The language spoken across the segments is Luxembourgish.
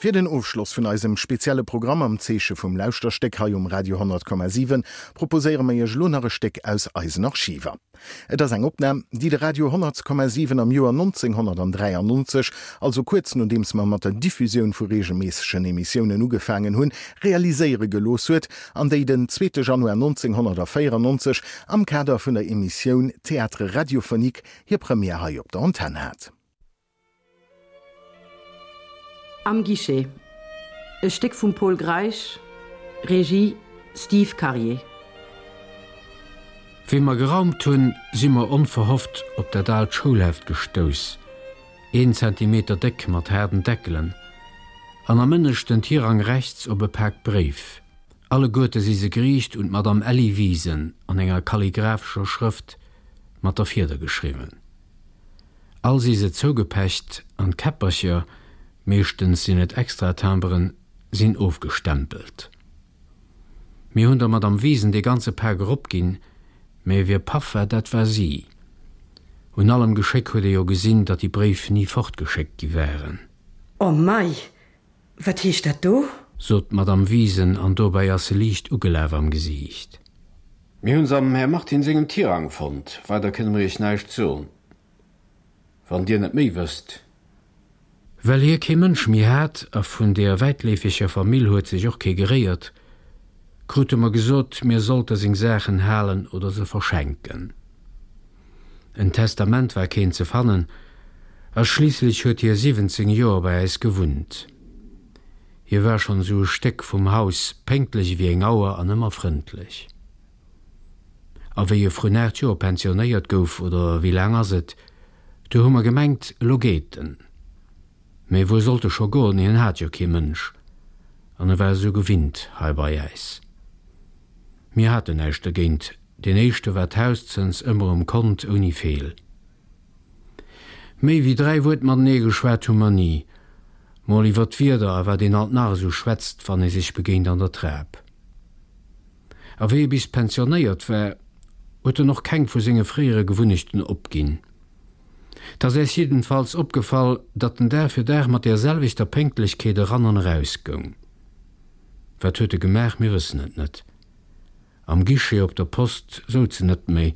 Fir den Ofschloss vun eisem spezielle Programm am Zeeche vum Lauschterstéck hei um Radio 100,7 proposéiere mer Iech elo nach e Stéck aus eisen Archiver. Et ass eng Opnam, déi de Radio 100,7 am Joer 1993, also kuerz nodeems mer mat der Diffusioun vu reegelméissegen Emissiounen ugefaangen hunn, realiséiere gelooss huet an déi den zweete Januar 1994 am Kader vun der Emissioun Théâtre radiophonique hir Première hei op der Antenn hat. Am Guichet, e Stéck vum Pol Greisch, Regie, Steve Karier. Wéi mer geraumt hunn, si mer onverhofft op dat aalt Schoulheft gestouss, een Zentimeter déck mat haarden Deckelen, an am ënneschten Tirang rechts op e Pak Bréif. Alleguerte si se geriicht un d'Madame Elli Wiesen an enger kalligraphescher Schrëft mat der Fieder geschriwwen. All si se zougepecht an d'Käppercher, meeschtens sinn et Extratimberen, sinn ofgestempelt. Mir hunn der Madame Wiesen dee ganze Pak eropginn, mä wie paff war, dat war si. Un allem Geschéck huet ee jo gesinn, datt déi Bréif ni fortgeschéckt gi waren. Oh mei, wat heescht dat do? Sot d'Madame Wiesen an dobäi ass se liicht ugelaf am Gesiicht. Mir hunn se am Här Martin sengem Tirang fonnt. Weider kënne mer Iech näischt soen, wann Dir net méi wësst. Well hie kee Mënsch méi hat, a vun deeër wäitleefeger Famill huet sech och kee geréiert, krute mer gesot, mir sollte seng Saachen halen oder se verschenken. En Testament war keent ze fannen, a schliisslech huet hie 17 Joer bei äis gewunnt. Hie war schonn esou e Stéck vum Haus, pénktlech ewéi eng Auer an ëmmer frëndlech. A wéi e vrun 8 Joer pensionéiert gouf, oder wéi laang ass et, du hu mer gemengt, elo geet en. Mee wuer sollt e scho goen, hien hat jo kee Mënsch an e war esou gewinnt hei bei äis. Mir haten näischt dergéint, deen éischte war d'Hauszëns ëmmer um Kont ouni Feel. Méi wéi 3 Wuert matenee geschwat hu mer ni. Mol iwwer d'Wieder a wat een alt nach esou schwätzt, wann ee sech begéint an der Trap. A wéi e bis pensionéiert war, huet en och keng vu senge fréiere Gewunnechten opginn. 't ass äis jiddenfalls opgefall, datt en Dag fir Dag mat deer selwechter Pénktlechkeet eran an eraus goung. Wat huet e gemaach? Mir wëssen et net. Am Guichet op der Post souz en net méi,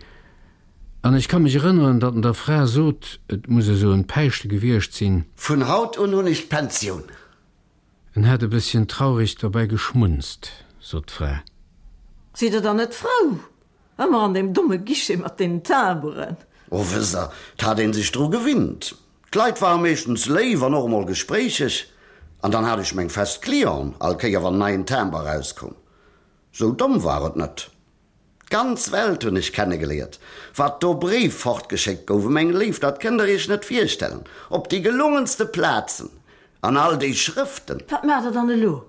an ech ka mech erënneren, datt en der Fra sot, et muss esou en Päischte gewiescht sinn. Vun haut un hunn ech d'Pensioun. En hätt e bësschen traureg derbäi geschmunzt, sot d'Fra. Sidd Der dann net frou? Ëmmer an deem domme Guichet mat deenen Timberen. O, wësst Der, 't hat een sech dru gewinnt. D'Leit ware meeschtens léif an och emol gespréicheg. An dann hat ech meng fest Clienten, all Kéier wann en neien Timber erauskoum. Sou domm war et net. D'ganz Welt hunn ech kennegeléiert. Wat do Bréif fortgeschéckt gouf, meng Léif, dat kënnt der iech net virstellen. Op déi gelungenste Plazen an all déi Schrëften. Wat maacht der dann elo?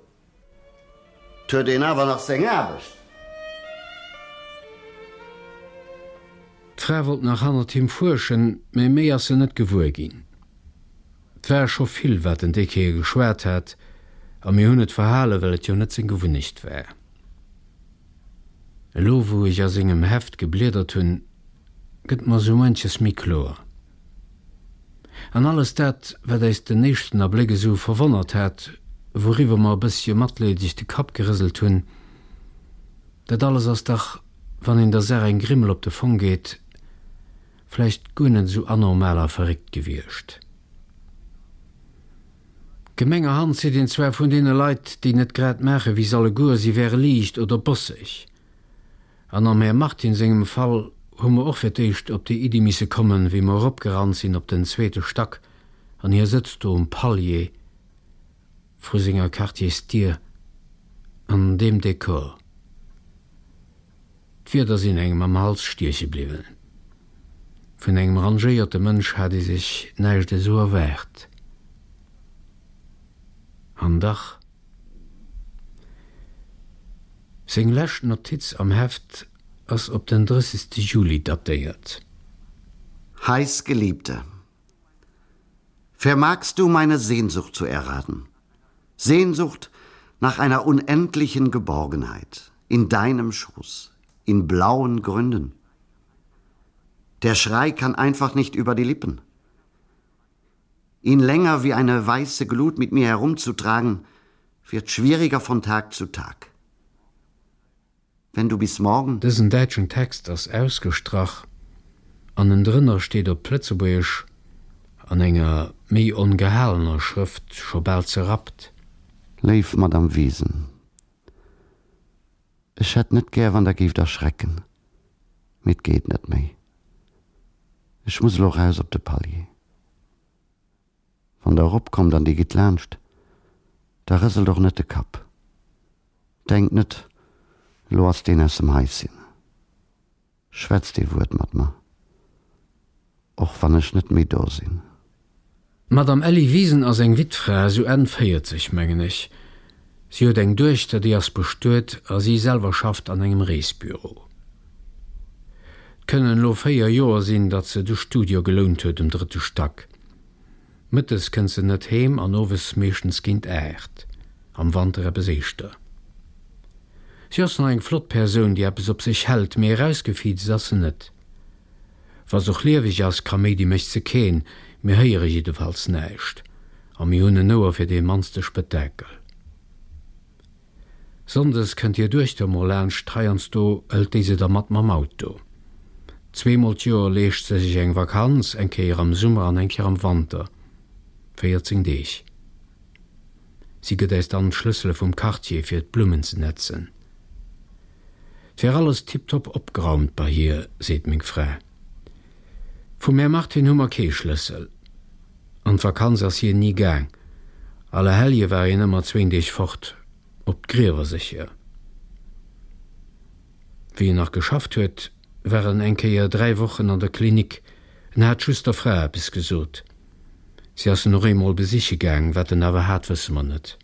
't huet een awer nach seng Aarbecht. D'Fra wollt nach hannert him fuerschen, mä méi ass se net gewuer ginn. 't war scho vill, wat en déi Kéier geschwat hat, a mir hunn et verhalen, well et jo net seng Gewunnecht war. Elo, wou ech a sengem Heft gebliedert hunn, gëtt mer sou muenches méi kloer. An alles dat, wat äis den éischten Abléck esou verwonnert hat, wouriwwer mer e bëssche matleedeg de Kapp gerëselt hunn, dat alles ass dach, wann een der Saach eng Grimmel op de Fong geet, vläicht guer net esou anormal a verréckt gewiescht. Gemengerhand seet een zwar vun deene Leit, déi net grad maache wéi s'alleguer, si wäre liicht oder bosseg. An am Här Martin sengem Fall hu mer och fir d'éischt op déi Iddi misse kommen, wéi mer eropgerannt sinn op den zweete Stack an hie sëtzt do um Palier vru senger Quartiersdier an deem Dekor. D'Wierder sinn engem am Hals stieche bliwwen. Vun engem rangéierte Mënsch hat ee sech näischt esou erwaart. An dach. Seng lescht Notiz am Heft ass op den 30. Juli datéiert. Heißgeliebte, vermagst du meine Sehnsucht zu erraten? Sehnsucht nach einer unendlichen Geborgenheit in deinem Schoß, in blauen Gründen. Der Schrei kann einfach nicht über die Lippen. Ihn länger wie eine weiße Glut mit mir herumzutragen, wird schwieriger von Tag zu Tag. Wenn du bis morgen. Dësen däitschen Text ass ausgestrach an ënnendrënner steet op Lëtzebuergesch an enger méi ongehalener Schrëft, scho bal zerrappt. Léif Madame Wiesen, Ech hätt net gär wann der géift erschrecken, mee 't geet net méi. Ech muss elo raus op de Palier. Wann der eropkommt an dir gitt laanscht, da rëselt och net de Kapp. Denkt net, elo ass deen aus dem Haischen. Schwätzt ee Wuert mat mer, och wann ech net méi do sinn. D'Madame Elli Wiesen ass eng Wittfra, sou Enn 40, mengen ech. Si huet eng Duechter, déi ass bestuet a si selwer schafft an engem Reesbüro. 't kënnen elo 4 Joer sinn, datt se de Studio gelount huet um drëtte Stack. Mëttes kënnt se net heem an owes meeschtens géint 8, am Wanter eppes éischter. Si ass nach eng flott Persoun, déi eppes op sech hält, mee erausgefiizt ass se net. Wa s'och lieweg ass, Kaméidi mécht se keen, mir héiere jiddefalls näischt a mir hunn en Ouer fir dee mannste Spëttakel. Sonndes kënnt hir Duechter mol laanscht, heiansdo hëlt déi se da mat mam Auto. Zweemol d'Joer leescht se sech eng Vakanz, eng Kéier am Summer an eng Kéier am Wanter, 14 Deeg. Si gëtt äis dann d'Schlëssele vum Quartier fir d'Blummen ze netzen. 't wär alles tiptop opgeraumt bei hir, seet meng Fra. Vum Här Martin hu mer kee Schlëssel. An d'Vakanz ass hien ni gaang. Allerhellje war hien ëmmer zwéin Deeg fort, op d'Griewer sécher. Wéi en nach geschafft huet, war en eng Kéier 3 Wochen an der Klinik. En hat just der Fra eppes gesot. Si ass en och eemol besiche gaang, wat en awer hat, wësse mer net.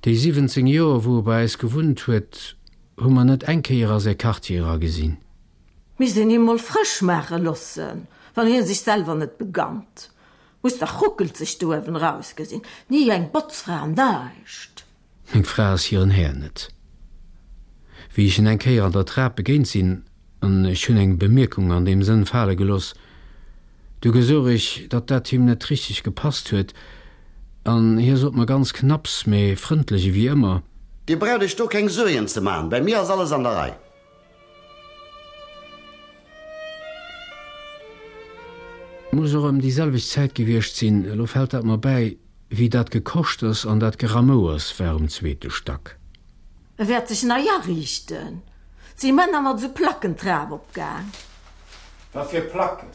Déi 17 Joer, wou e bei äis gewunnt huet, hu mer net eng Kéier a säi Quartier eragesinn. Misst een him mol frësch maache lossen, wann hien sech selwer net begannt. Muss dach ruckelzeg do uewen erausgesinn, ni eng Botzfra an näischt. Meng Fra ass hiren Här net. Wéi ech en eng Kéier an der Trap begéint sinn, an ech hunn eng Bemierkung an deem Sënn fale geloss, du gesouch ech, datt dat him net richteg gepasst huet, an hie sot mer ganz knapps, mee frëndlech ewéi ëmmer. Dir braucht iech do keng Suergen ze man, bei mir ass alles an der Rei. Muss och ëm déi selwecht Zäit gewiescht sinn, elo fält dat mer bäi, wéi dat Gekoschters an dat Geramouers war um zweete Stack. E wäert sech nei ariichten. 't si Männer mat esou Placken d'Trap opgaang. Wat fir Placken?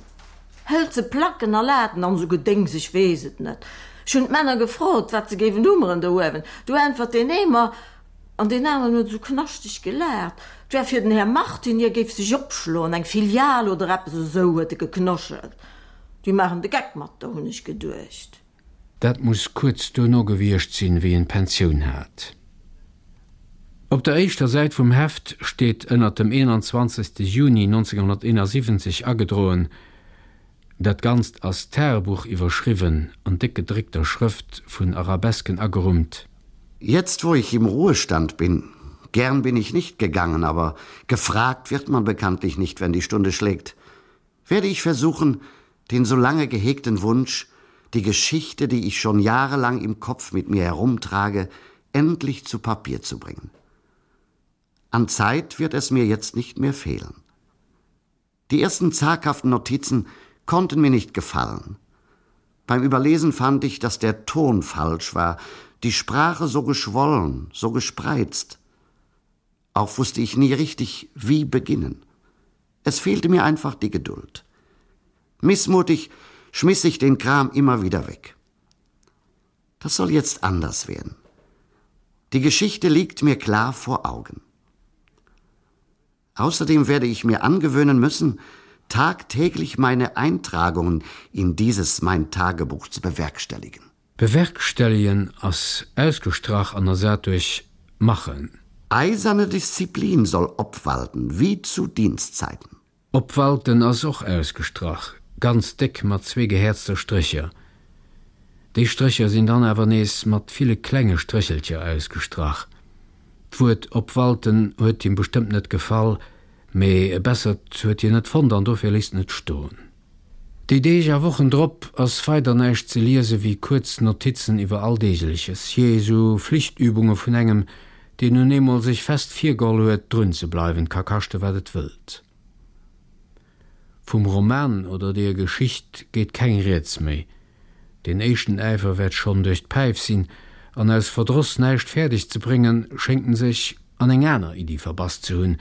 Hëlze Placken a Laten an esou Gedéngs, ech weess et net. Ech hunn d'Männer gefrot, wat se géiwen hummeren do uewen. Du äntwert deen ee mer, An deen aneren huet esou knaschteg gelaacht, 't wär fir den Här Martin, hie géif sech opschloen, eng Filial oder eppes esou, huet e geknoschelt. Déi maachen de Geck mat der, hunn ech geduecht. Dat muss kuerz duerno gewiescht sinn, wéi en d'Pensioun hat. Op der éischter Säit vum Heft steet ënnert dem 21. Juni 1971 agedroen, Dat Ganzt ass Tagebuch iwwerschriwwen, an déck gedréckter Schrëft vun Arabesken agerummt. Jetzt wo ich im Ruhestand bin, gern bin ich nicht gegangen, aber gefragt wird man bekanntlich nicht, wenn die Stunde schlägt, werde ich versuchen, den so lange gehegten Wunsch, die Geschichte, die ich schon jahrelang im Kopf mit mir herumtrage, endlich zu Papier zu bringen. An Zeit wird es mir jetzt nicht mehr fehlen. Die ersten zaghaften Notizen konnten mir nicht gefallen. Beim Überlesen fand ich, dass der Ton falsch war, die Sprache so geschwollen, so gespreizt. Auch wusste ich nie richtig, wie beginnen. Es fehlte mir einfach die Geduld. Missmutig schmiss ich den Kram immer wieder weg. Das soll jetzt anders werden. Die Geschichte liegt mir klar vor Augen. Außerdem werde ich mir angewöhnen müssen, tagtäglich meine Eintragungen in dieses mein Tagebuch zu bewerkstelligen. Bewerkstelligen ass ausgestrach an ersat duerch machen. Eiserne Disziplin soll obwalten, wie zu Dienstzeiten. Obwalten ass och ausgestrach, ganz déck mat zwee gehäerzter Strécher. Déi Strécher sinn dann awer nees mat ville klenge Stréchelcher ausgestrach. D'Wuert obwalten huet him bestëmmt net gefall, mee e bessert huet hien net fonnt an dofir léisst en et stoen. Déi Deeg a Wochen drop ass weider näischt ze liese wéi kuerz Notizen iwwer Alldeegleches, jee, esou Flichtübunge vun engem, deen nun eemol sech fest virgeholl huet, drun ze bleiwen, ka kaschte wat et wëllt. Vum Roman oder deeër Geschicht geet keng Rieds méi. Deen éischten Äifer wäert schonn duerch d'Päif sinn, an aus Verdross näischt fäerdeg ze bréngen, schéngt en sech an eng aner Iddi verbass ze hunn,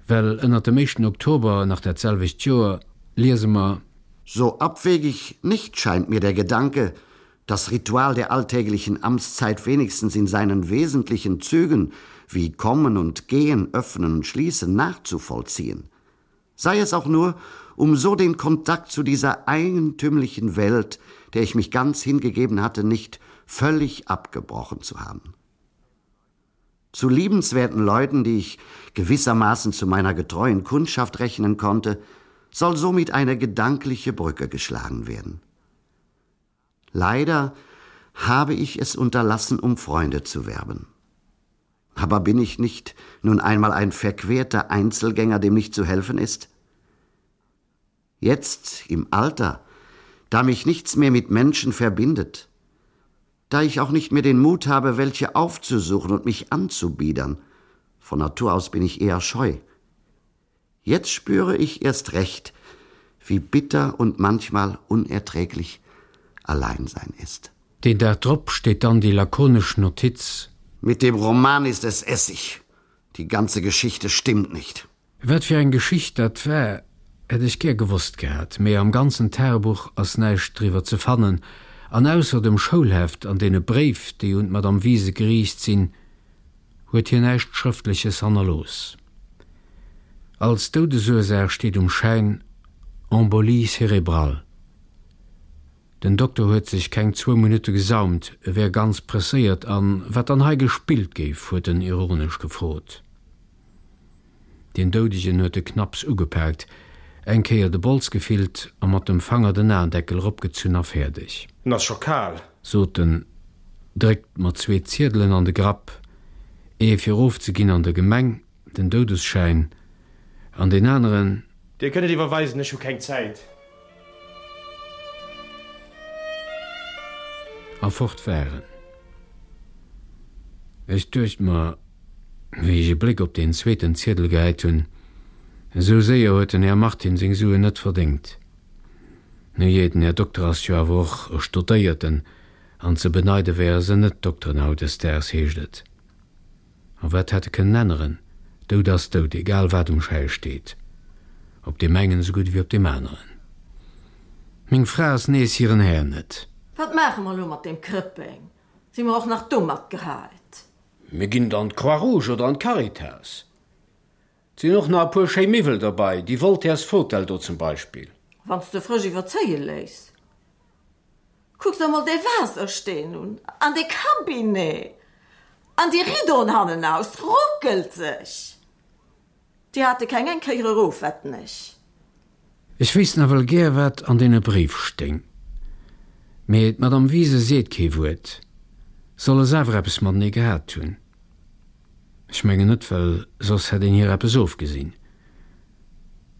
well ënnert dem éischten Oktober nach dat selwecht Joer liese mer. So abwegig nicht scheint mir der Gedanke, das Ritual der alltäglichen Amtszeit wenigstens in seinen wesentlichen Zügen wie Kommen und Gehen, Öffnen und Schließen nachzuvollziehen sei es auch nur, um so den Kontakt zu dieser eigentümlichen Welt, der ich mich ganz hingegeben hatte, nicht völlig abgebrochen zu haben. Zu liebenswerten Leuten, die ich gewissermaßen zu meiner getreuen Kundschaft rechnen konnte, soll somit eine gedankliche Brücke geschlagen werden. Leider habe ich es unterlassen, um Freunde zu werben. Aber bin ich nicht nun einmal ein verquerter Einzelgänger, dem nicht zu helfen ist? Jetzt im Alter, da mich nichts mehr mit Menschen verbindet, da ich auch nicht mehr den Mut habe, welche aufzusuchen und mich anzubiedern, von Natur aus bin ich eher scheu. Jetzt spüre ich erst recht, wie bitter und manchmal unerträglich Alleinsein ist. Den Dag drop steet dann déi lakonesch Notiz. Mit dem Roman ist es Essig. Die ganze Geschichte stimmt nicht. Wat fir eng Geschicht dat war, hätt ech gär gewosst gehat, mee am ganzen Tagebuch ass näischt driwwer ze fannen, an ausser dem Schoulheft an deene Bréif, déi un d'Madame Wiese geriicht sinn, huet hien näischt Schrëftleches hannerlooss. Als Doudesursaach steet um Schäin Embolie cérébrale. Den Dokter huet sech keng zwou Minutte gesaumt, e wär ganz presséiert an wat dann hei gespillt géif, huet en ironesch gefrot. Deen Doudegen huet e knapps ugepaakt, eng Kéier de Bols gefillt a mat dem Fanger den Aendeckel eropgezunn a fäerdeg. En ass scho kal. Sot en, dréckt mer zwee Ziedelen an de Grapp, ee fir ofzeginn an der Gemeng, den Doudesschäin, an deen aneren. Dir kënnt et iwwerweisen, ech hu keng Zäit. A fort war en. Ech duecht mer, wéi ech e Bléck op deen zweeten Ziedel gehäit hunn, esou séier huet den Här Martin seng Suen net verdéngt. Nujee, den Här Dokter ass jo awer och e Stodéierten, an ze beneide wäre se net, d'Dokteren hautdesdaags, heescht et. A wat hätt e kënnen änneren? Doud ass doud, egal wat um Schäi steet. Op deem engen esou gutt ewéi op deem aneren. Meng Fra ass nees hiren Här net. Wat maache mer elo mat deem Krëppeng? Si mer och nach domat gehäit? Mir ginn et an d'Croix-Rouge oder an d'Caritas. 't sinn och nach e puer schéi Miwwel derbei, déi Voltaire's Fotell do zum Beispill. Wann s de frësch iwwerzéie léiss. Kuck der mol dee Waassersteen un, an dee Cabinet, an déi Ridoen hannenaus, ruckelt sech! Déi hate keng eng Kéier erof, wetten ech. Ech wéisst nawell gär, wat an deene Bréif stéing. Mee d'Madame Wiese seet kee Wuert. Solle s'awer eppes matenee gehat hunn? Ech mengen net, well soss hätt een hir eppes ofgesinn.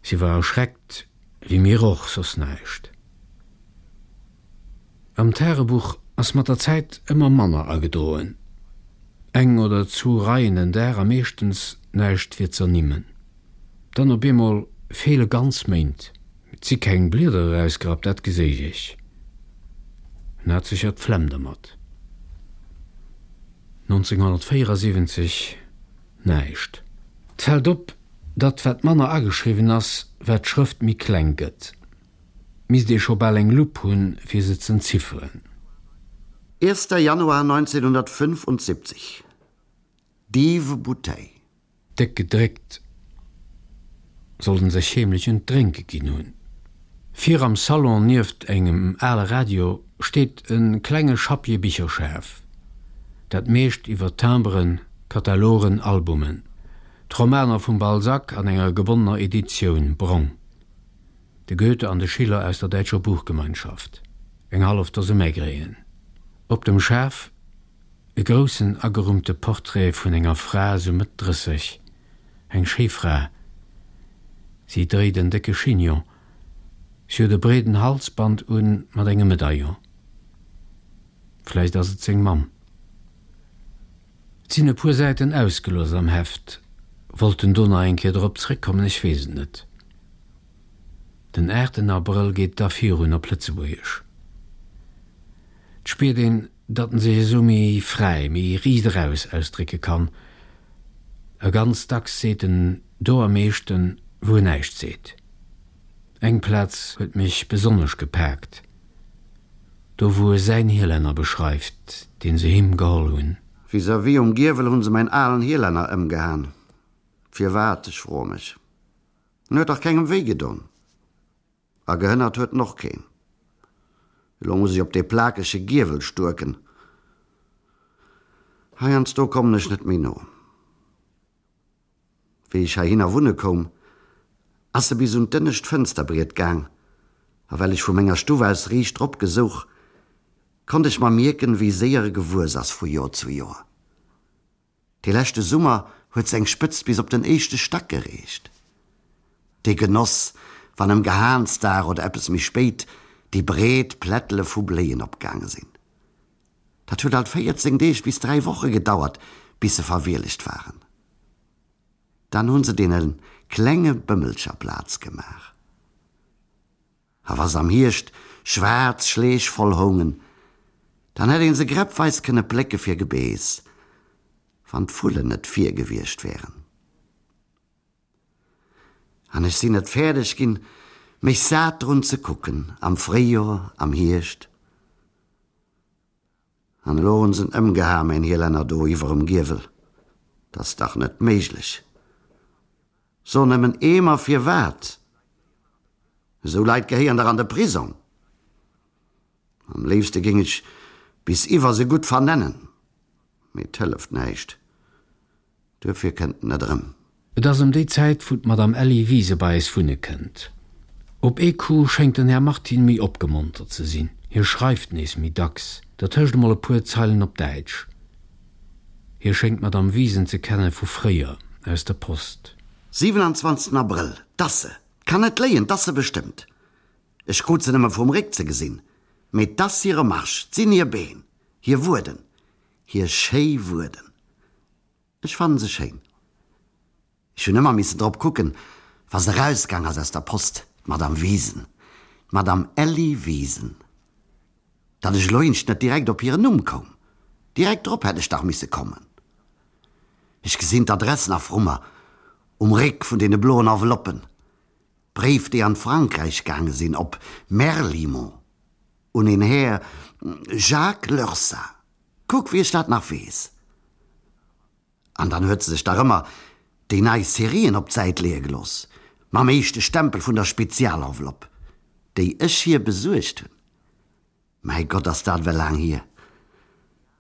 Si war erschreckt, wéi mir och, soss näischt. Am Tagebuch ass mat der Zäit ëmmer manner agedroen. Eng oder zwou Reien den Dag a meeschtens näischt fir z'ernimmen. Dann op eemol feele ganz Méint. Et si keng Blieder erausgerappt, dat geséich ech. En hat sécher d'Flemm dermat. 1974 näischt. 't fält op, datt wat manner ageschriwwen ass, wat d'Schrëft méi kleng gëtt. Misst ee scho bal eng Lupp hunn, fir se z'entzifferen. Erster Januar 1975, Dive Bouteille. Déck gedréckt, sollt en sech heemlech un d'Drénke ginn hunn. Vir am Salon nieft engem ale Radio steet e klenge Schappje Bicherschaf, dat meescht iwwer Timberen, Katalogen, Albumen, d'Romaner vum Balzac an enger gebonnener Editioun, brong. De Goethe an de Schiller aus der Däitscher Buchgemeinschaft, eng hallef Dose Maigret'en. Op dem Schaf e groussen agerummte Portrait vun enger Fra sou Mëtt 30, eng schéi Fra. Si dréit en décke Chignon. Si huet e breeden Halsband un mat engem Medaillon. Vläicht ass et seng Mamm. Et sinn e puer Säiten ausgelooss am Heft. Wollt en do nach eng Kéier drop zréckkommen? Ech weess et net. Den aachten Abrëll geet da virun op Lëtzebuergesch. Et spiert een, datt en sech esou méi fräi, méi riicht eraus ausdrécke kann. A ganz dacks seet en do am meeschten, wou en näischt seet. Eng Plaz huet mech besonnesch gepaakt, do wou e säin Hielenner beschreift, deen se him geholl hunn. Vis-à-vis um Giewel hunn se mäin alen Hielenner ëmgehaen. Firwat, ech froe mech. En huet dach kengem wéi gedon. A gehënnert huet en och keen. Elo muss ech op dee plakege Giewel stuerken. Heiansdo kommen ech net méi no. Wéi ech heihinner wunne koum, ass e bis un d'ënnescht Fënsterbriet gaang, a well ech vu menger Stuff aus riicht drop gesouch, konnt ech mer mierken, wéi séier e gewuess ass vu Joer zu Joer. Dee leschte Summer huet seng Spëtzt bis op den éischte Stack gereecht. Dee Genoss, wann ëm Gehaansdag oder eppes méi spéit déi breet Plättele vu Bléien opgaange sinn. Dat huet alt 14 Deeg bis 3 Woche gedauert, bis se verwielegt waren. Dann hu se deene klenge Bëmmelcher Plaz gemaach. A wa s'am Hierscht schwaarz Schleech voll houngen, dann hätt een se gräppweis kënne plécke fir Gebeess, wann d'Vullen net vir gewiescht wären. An ech sinn net fäerdeg ginn, mech sat drun ze kucken, am Fréijor, am Hierscht. An elo hunn s'en ëmgeha, mäin Hielänner do iwwerem Giewel. 't ass dach net méiglech. So nëmmen eemer firwat? Esou Leit gehéieren dach an de Prisong. Am léifste géing ech bis iwwer se gutt vernennen, mee 't hëlleft näischt, duerfir kënnt en net erëm. Et ass ëm déi Zäit, wou d'Madame Elli Wiese bei eis wunne kënnt. Op ee Coup schéngt den Här Martin méi opgemontert ze sinn. Hie schreift nees méi dacks, dertëscht emol e puer Zeilen op Däitsch. Hie schéngt d'Madame Wiesen ze kenne vu fréier, aus der Post. 27 Abrëll, 'T ass se! 'T kann net léien, 't ass se bestëmmt! Ech krut se nëmme vum Réck ze gesinn, mee 't ass hire Marsch, 't sinn hir Been, hir Wueden, hir schéi Wueden. Ech fannen se schéin. Ech hunn ëmmer missen drop kucken, wa se erausgaang ass aus der Post, d'Madame Wiesen, d'Madame Elli Wiesen. Datt ech elo eenzcht net direkt op hiren Numm koum. Direkt drop hätt ech dach misse kommen. Ech gesinn d'Adress nach vru mer, um Réck vun deene bloen Enveloppen. D'Bréif, déi an d'Frankräich gaange sinn, op Merlimont, un een Här Jacques Lursa. Kuck, wéi ech dat nach weess. An dann huet se sech dach ëmmer déi nei Serien op d'Säit leeë gelooss, mam éischte Stempel vun der Spezialenveloppe, déi ech hir besuergt hunn. Mäi Gott, ass dat ewell laang hier!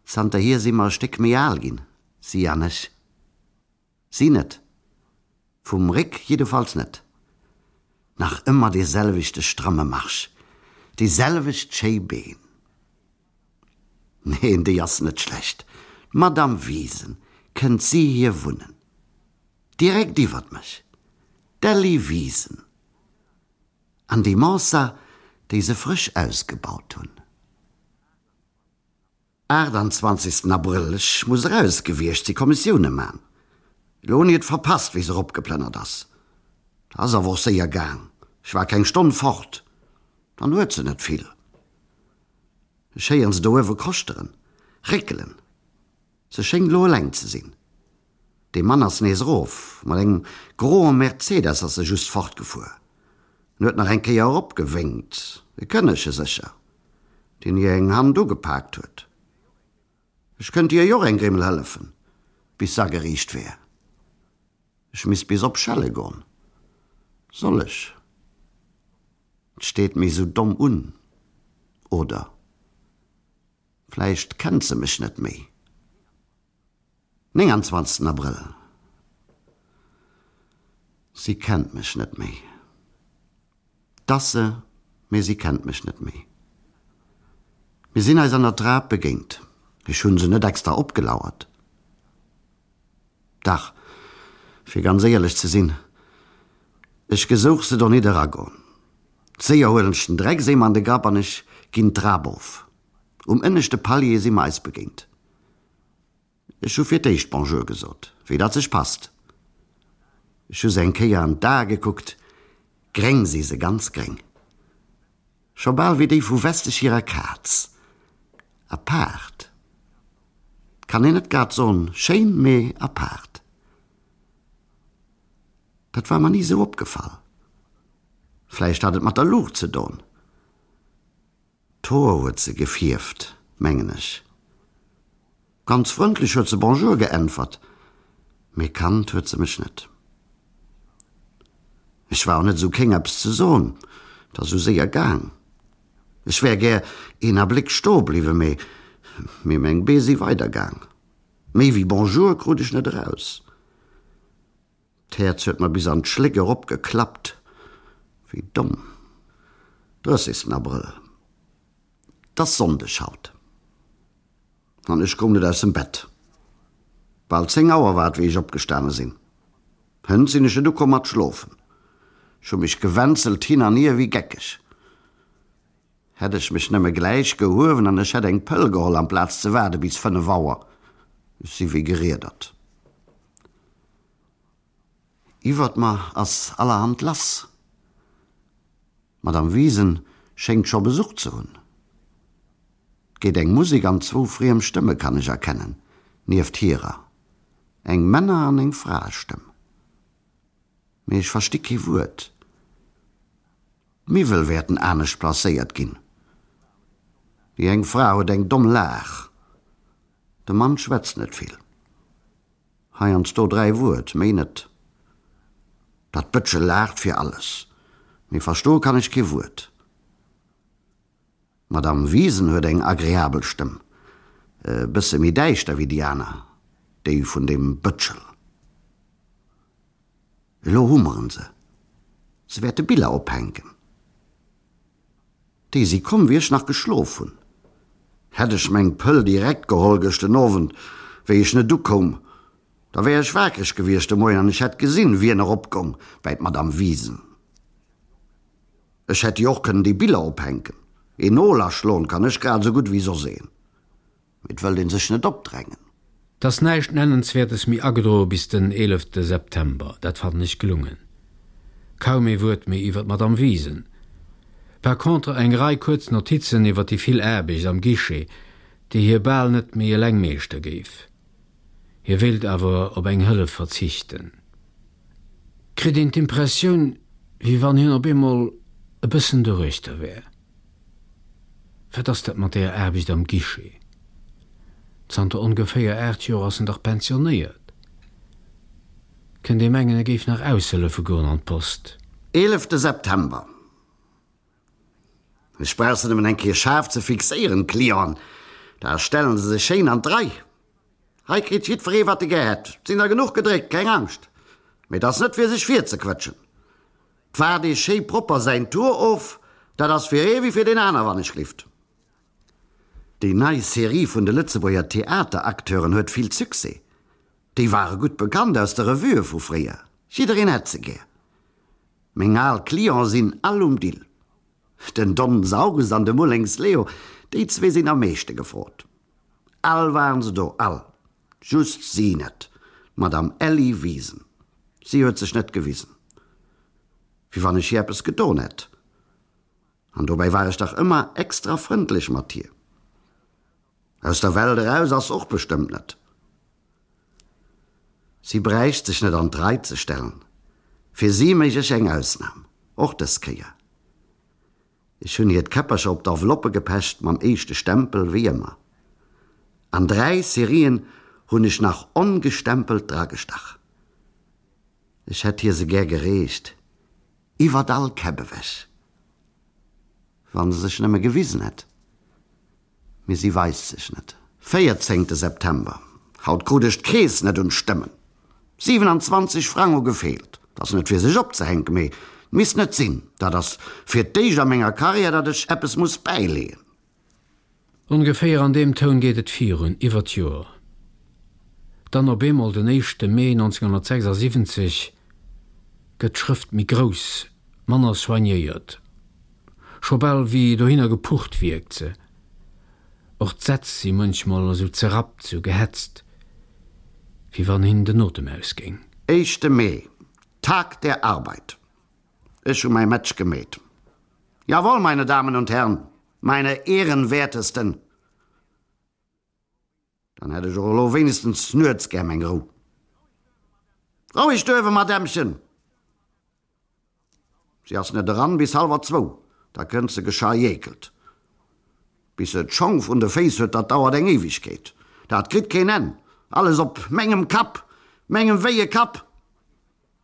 Zanterhier si mer e Stéck méi al ginn, si an ech. Si net. Vum Réck jiddefalls net. Nach ëmmer dee selwechte stramme Marsch, déi selwecht schéi Been. Neen, déi ass net schlecht. D'Madame Wiesen, kënnt si hier wunnen? Direkt iwwert mech. D'Elli Wiesen. An déi Mensa, déi se frësch ausgebaut hunn. 28 Abrëll, Ech muss eraus gewiescht si Kommissioune man. Elo hunn ech et verpasst, wéi se eropgeplënnert ass. 't ass awer och séier gaang, ech war keng Stonn fort, dann huet se net vill. Ech héieren se do uewe koschteren, réckelen. Se schéngt elo eleng ze sinn. Dee Mann ass nees erof, mat engem groe Mercedes ass e just fortgefuer. En huet nach eng Kéier eropgewénkt, e Kënnege sécher, deen hir eng Hand ugepaakt huet. Ech kënnt hir jo och eng Grimmel hëllefen, bis s'ageriicht wär. Ech misst bis op Schelle gon. Soll ech? 't steet méi sou domm un, oder? Vläicht kennt se mech net méi. 29 Abrëll, Si kennt mech net méi. 't ass se, mee si kennt mech net méi. Mir sinn eis an der Trap begéint. Ech hunn se net extra opgelauert. Dach, fir ganz éierlech ze sinn, ech gesouch se do nit eragoen. Séier huelen ech den Dreckseemer an de Grapp an ech ginn d'Trap of. Um ënneschte Palier si mer eis begéint. Ech hu fir d'éischt Bonjour gesot, wéi dat sech passt. Ech hu se eng Kéier an d'Ae gekuckt, gréng si se, ganz gréng. Scho bal wéi déi vu Westesch hirer Kaz. Apaart. 't kann een net grad soen schéin, mee apaart. Dat war mer ni sou opgefall. Vläicht hat et mat der Luucht ze don. D'Hoer huet se gefierft, mengen ech. Ganz frëndlech huet se Bonjour geäntwert, mee kannt huet se mech net. Ech war och net esou kéng eppes ze soen, 't ass esou séier gaang. Ech wär gär een Abléck stoe bliwwen, mee mee meng Bee si weidergaang. Méi wéi Bonjour krut ech net eraus. D'Häerz huet mer bis an d'Schléck erop geklappt. Wéi domm. Drëssigsten Abrëll. 't ass Sonndeg haut. An ech koum net aus dem Bett. Bal 10 Auer war et, wéi ech opgestane sinn. Hënt sinn ech net ukomm mat schlofen. Ech hu mech gewänzelt hin an hier wéi geckeg. Hätt ech mech nëmme gläich gehuewen an ech hätt eng Pëll geholl amplaz ze waarde bis 5 Auer. Ech si wéi geriedert. Iwwert mer ass allerhand lass. D'Madame Wiesen schéngt scho Besuch ze hunn. 't geet eng Musek an zwou friem Stëmme kann ech erkennen, nieft hirer, eng Männer an eng Fraestëmm. Mee ech versti kee Wuert. D'Miwwel wäerten anescht placéiert ginn. Déi eng Fra huet eng domm Laach. De Mann schwätzt net vill. Heiansdo 3 Wuert, méi net. Dat Bëtschel laacht fir alles, mee verstoe kann ech kee Wuert. D'Madame Wiesen huet eng agreabel Stëmm, e bësse méi däischter wéi déi aner, déi vun deem Bëtschel. Elo hummeren se, se wäerte Biller ophänken. Déi si komm, wéi ech nach geschlof hunn. Hätt ech meng Pëll direkt geholl gëscht den Owend, wéi ech net ukoum, da wär ech waakreg gewiescht de Moien an ech hätt gesinn, wien eropgong bäi d'Madame Wiesen. Ech hätt jo och kënnen déi Biller ophänken. Een Nol aschloen kann ech grad esou gutt wéi soss een. Mee et wëllt een sech net opdrängen. 't ass näischt Nennenswäertes méi agedroe bis den eelefte September. Dat fannen ech gelungen. Kaum ee Wuert méi iwwer d'Madame Wiesen. Par contre eng Rei kuerz Notizen iwwer déi vill Aarbecht am Guichet, déi hie bal net méi eleng meeschter géif. Hie wéilt awer op eng Hëllef verzichten. Kritt een d'Impressioun, wéi wann hien op eemol e bëssen doruechter wär. Wat ass dat mat deeër Aarbecht am Guichet? Zanter ongeféier 8 Joer ass en dach pensionéiert. Kënnt ee mengen, e géif nach aushëllefe goen an d'Post. Eelefte September, Ech brauch se nëmmen eng Kéier schaarf ze fixéieren, d'Clienten, da stellen se sech schéin an d'Rei. Hei kritt jiddweree wat e gär hätt, 't sinn der genuch gedréckt, keng Angscht. Mee 't ass net fir sech virzequëtschen. 't waart ee schéi propper säin Tour of, dat ass fir ee wéi fir deen aner, wann ech glift. Déi nei Serie vun de Lëtzebuerger Theateracteuren huet vill Succès. Déi ware gutt bekannt aus de Revuë vu fréier, jiddereen hätt se gär. Meng al Clienten sinn all um Dill. Den Don Saurus an de Mullings Leo, déi zwee sinn am meeschte gefrot. All waren se do, all. Just si net, d'Madame Elli Wiesen. Si huet sech net gewisen. Wéi wann ech hir eppes gedon hätt. An dobäi war ech dach ëmmer extra frëndlech mat hir. Aus der Welt eraus ass s'och bestëmmt net. Si bräicht sech net an d'Rei ze stellen. Fir si méich ech eng Ausnam, och dës Kéier. Ech hunn hir d'Käppercher op d'Enveloppe gepecht, mam éischte Stempel, wéi ëmmer. An 3 Serien hunn ech nach ongestempelt dragestach. Ech hätt hir se gär gereecht, iwwert all Käpp ewech. Wann se sech nëmme gewisen hätt. Mee si weist sech net. Véierzéngte September, Haut krut ech d'Keess net un d'Stëmmen. 27 Frang hu gefeelt. 't ass net fir sech opzehänken, mee 't misst net sinn. Dat ass fir d'éischt a menger Karriär, datt ech eppes muss bäileeën. Ongeféier an deem Toun geet et virun, iwwer d'Joer. Dann op eemol, den éischte Mee 1976, gëtt d'Schrëft méi grouss, manner soignéiert. Scho bal wéi dohinner gepucht wierkt se. Och d'Sätz si munchmol esou zerrappt, sou gehetzt, wéi wann hinnen den Otem ausgéing. Éischte Mee, Tag der Arbeit. Ech hu mäi Match gemeet. Jawohl, meine Damen und Herren, meine Ehrenwertesten! Dann hätt ech och elo wéinegstens nuets gär meng Rou. Roueg duerwe, Madämmchen! Si ass net eran bis hallwer zwou, da kënnt se geschajékelt. Bis se d'Schong vrun de Féiss huet, dat dauert eng Éiwegkeet. Dat kritt keen Enn. Alles op mengem Kapp, mengem wéie Kapp!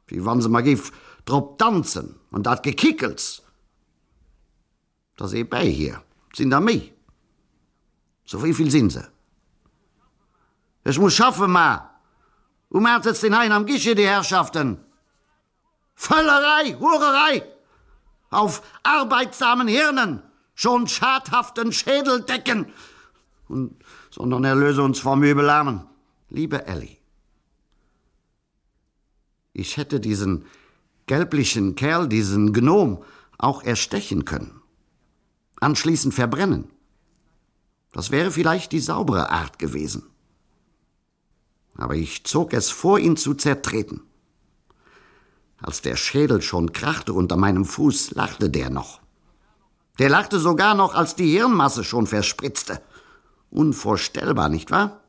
Wéi wann se mer géif drop danzen, an dat Gekickels! 't ass ee bäi hir, 't sinn der méi. Sou wéi vill sinn se? Ech muss schaffen, ma um 8 sëtzt een heien am Guichet, déi Herrschaften. Völlerei, Hurerei! Auf arbeitsamen Hirnen schon schadhaften Schädeldecken und, sondern erlöse uns vom Übel. Amen. Liebe Elli, ich hätte diesen gelblichen Kerl, diesen Gnom, auch erstechen können. Anschließend verbrennen. Das wäre vielleicht die saubere Art gewesen. Aber ich zog es vor, ihn zu zertreten. Als der Schädel schon krachte unter meinem Fuß, lachte der noch. Der lachte sogar noch, als die Hirnmasse schon verspritzte. Unvorstellbar, nicht wahr?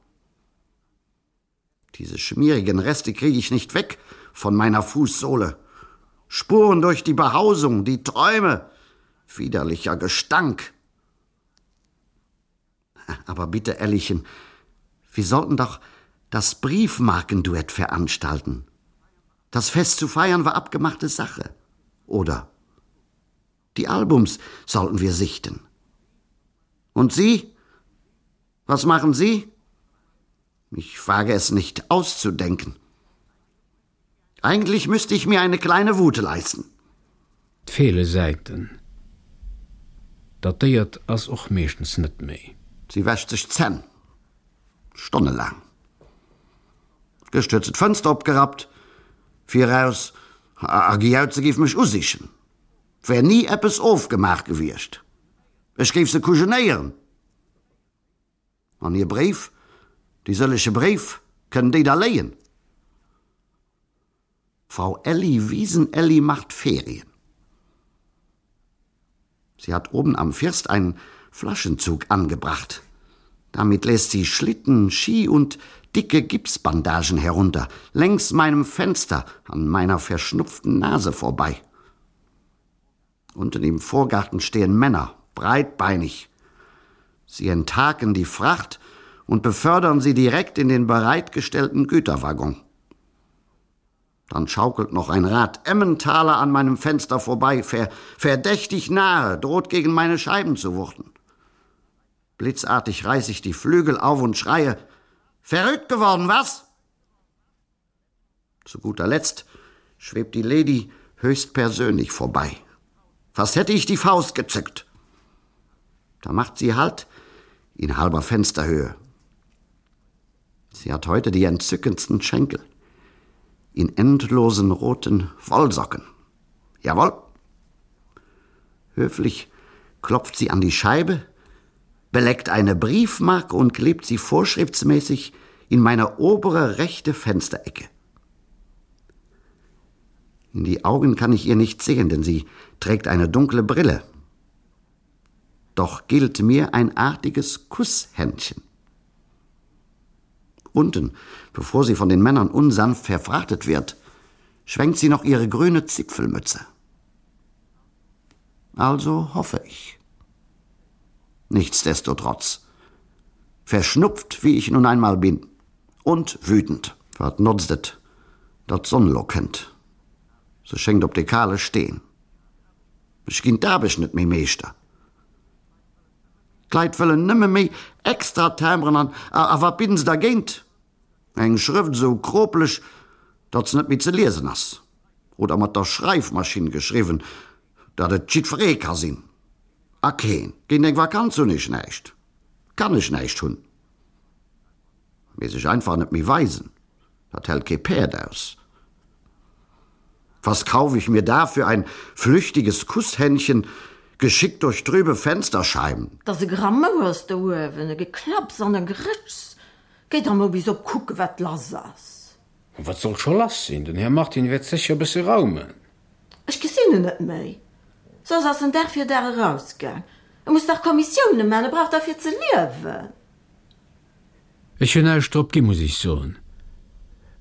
Diese schmierigen Reste kriege ich nicht weg von meiner Fußsohle. Spuren durch die Behausung, die Träume, widerlicher Gestank. Aber bitte, Ellichen, wir sollten doch das Briefmarkenduett veranstalten. Das Fest zu feiern war abgemachte Sache. Oder die Albums sollten wir sichten. Und Sie? Was machen Sie? Ich wage es nicht auszudenken. Eigentlich müsste ich mir eine kleine Wut leisten. 't feele Säiten. Dat Déiert ass och meeschtens net méi. Si wäscht sech d'Zänn. Stonnelaang. Gëscht huet se d'Fënster opgerappt, fir eraus a gejaut, se géif mech usichen. 't wär ni eppes ofgemaach gewiescht. Ech géif se kujenéieren. An hir Bréif, déi sëlleche Bréif, kënnen déi da léien? Frau Elli Wiesenelli macht Ferien. Sie hat oben am First einen Flaschenzug angebracht. Damit lässt sie Schlitten, Ski und dicke Gipsbandagen herunter, längs meinem Fenster an meiner verschnupften Nase vorbei. Unten im Vorgarten stehen Männer, breitbeinig. Sie enthaken die Fracht und befördern sie direkt in den bereitgestellten Güterwaggon. Dann schaukelt noch ein Rad Emmentaler an meinem Fenster vorbei, ver verdächtig nahe, droht gegen meine Scheiben zu wuchten. Blitzartig reiß ich die Flügel auf und schreie: Verrückt geworden, was? Zu guter Letzt schwebt die Lady höchstpersönlich vorbei. Fast hätte ich die Faust gezückt. Da macht sie Halt in halber Fensterhöhe. Sie hat heute die entzückendsten Schenkel in endlosen roten Wollsocken. Jawohl. Höflich klopft sie an die Scheibe, beleckt eine Briefmarke und klebt sie vorschriftsmäßig in meine obere rechte Fensterecke. In die Augen kann ich ihr nicht sehen, denn sie trägt eine dunkle Brille. Doch gilt mir ein artiges Kusshändchen. Unten, bevor sie von den Männern unsanft verfrachtet wird, schwenkt sie noch ihre grüne Zipfelmütze. Also hoffe ich. Nichtsdestotrotz. Verschnupft, wie ich nun einmal bin. Und wütend. Wat notzt et, datt d'Sonn lo kënnt? Se schéngt op de kale Steen. Ech ginn d'Aarbecht net méi meeschter. D'Leit wëllen nëmme méi extra Timberen an a wat bidden se dergéint? Eng Schrëft esou kropeleg, datt se net méi ze liesen ass, oder mat der Schreifmaschinn geschriwwen, datt et jiddweree ka sinn. A keen. Géint eng Vakanz hunn ech näischt, kann ech näischt hunn. Mee sech einfach net méi weisen, dat hält kee Päerd aus. Was kaufe ich mir dafür ein flüchtiges Kusshändchen? Geschickt durch trübe Fensterscheiben. 't ass e Gramouers do uewen, e Geklapps an e Gerëtschs. Géi der mol bis op kucke wat lass ass. Wat soll scho lass sinn? Den Här Martin wäert sécher e bësse raumen. Ech gesinn en net méi. Soss ass en Dag fir Dag erausgaang. E muss dach Kommissioune man, e brauch dach fir ze liewen. Ech hunn näischt drop gi, muss ech soen.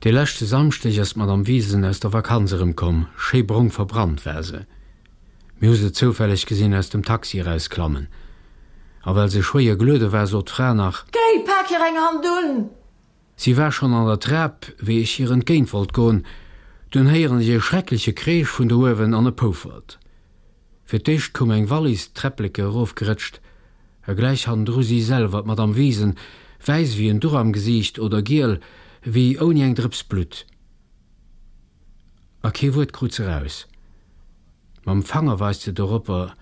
Dee leschte Samschdeg ass d'Madame Wiesen aus der Vakanz erëmkomm, schéi brong verbrannt war se. Mir hu se zoufälleg gesinn aus dem Taxi erausklammen. A well se schwéier geluede war, sot d'Fra nach. Géi, pak hir eng Hand un! Si war schonn an der Trap, wéi ech hir entgéint wollt goen. Dunn héieren ech e schreckleche Kreesch vun do uewen an e Poufert. Fir d'éischt koum eng Wallis d'Träppleke erofgerëtscht, a gläich hannendru si selwer, d'Madame Wiesen, wäiss ewéi en Duch am Gesiicht oder giel wéi ouni eng Drëps Blutt. A kee Wuert krut se raus. Mam Fanger weist se doropper,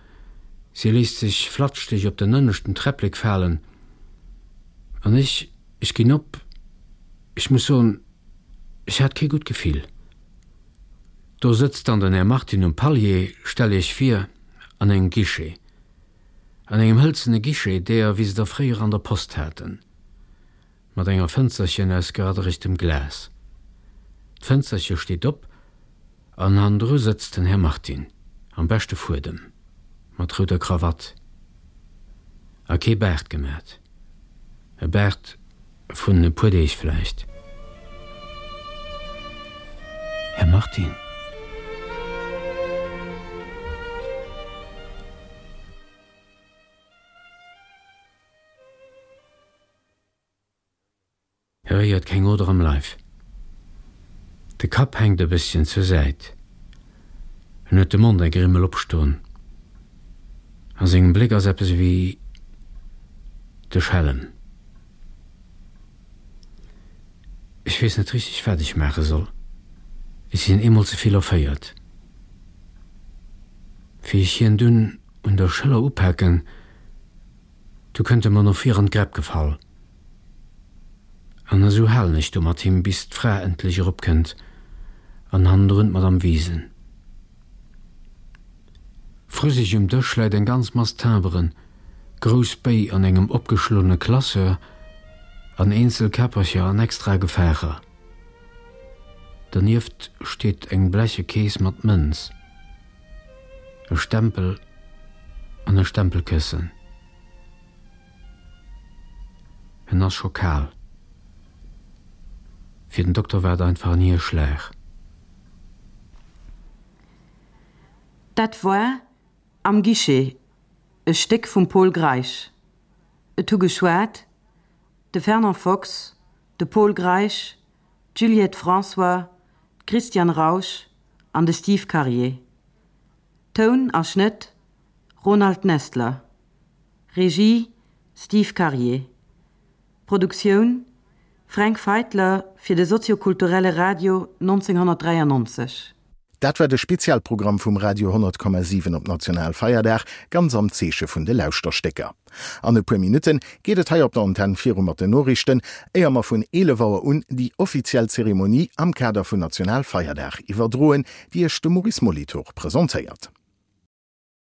si léisst sech flatschdeg op den ënneschten Träpplek falen, an ech, ech ginn op, ech muss soen, ech hat kee gutt Gefill. Do sëtzt dann den Här Martin um Palier, stell Iech vir, an engem Guichet, an engem hëlzene Guichet, deeër wéi se der fréier an der Post haten. Mat enger Fënsterchen aus geradderegtem Glas. D'Fënsterche steet op an hannendru sëtzt den Här Martin, am beschte Fuedem, mat rouder Krawatt a kee Baart gemat, e Baart vun e puer Deeg vläicht. Här Martin. E réiert keng Oder am Leif. De Kapp hänkt e bësschen zur Säit. En huet de Mond eng Grimmel opstoen. A sengem Bléck ass eppes ewéi de Schellem. Ech weess net richteg, wat ech maache soll. Ech sinn eemol ze vill erféiert. Wéi ech hien dunn un der Schëller upaken, Du kënnt e mer no vir an d'Gräpp gefall. An esou halen ech do mat him, bis d'Fra endlech eropkënnt an hannendrun d'Madame Wiesen. Vru sech um Dësch läit eng ganz Mass Timberen, grouss Béi an engem opgeschloene Classeur an eenzel Käppercher an extra Gefaacher. Dernieft steet eng bleche Kees mat Mënz. E Stempel an e Stempelkëssen. En ass scho kal. Fir den Dokter war et einfach en Hierschlag. Dat war Am Guichet, e Stéck vum Pol Greisch. Et hu geschwat, de Fernand Fox, de Pol Greisch, d'Juliette François, d'Christiane Rausch an de Steve Karier. Toun a Schnëtt, Ronald Nestler. Regie, Steve Karier. Produktioun, Fränk Feitler fir de soziokulturelle Radio 1993. Dat war de Spezialprogramm vum Radio 100,7 op Nationalfeierdag, ganz am Zeeche vun de Lauschterstécker. An e puer Minutte geet et hei op der Antenn viru mat den Noriichten, éier mer vun 11 Auer un déi offiziell Zeremonie am Kader vun Nationalfeierdag iwwerdroen, déi Iech de Maurice Molitor presentéiert.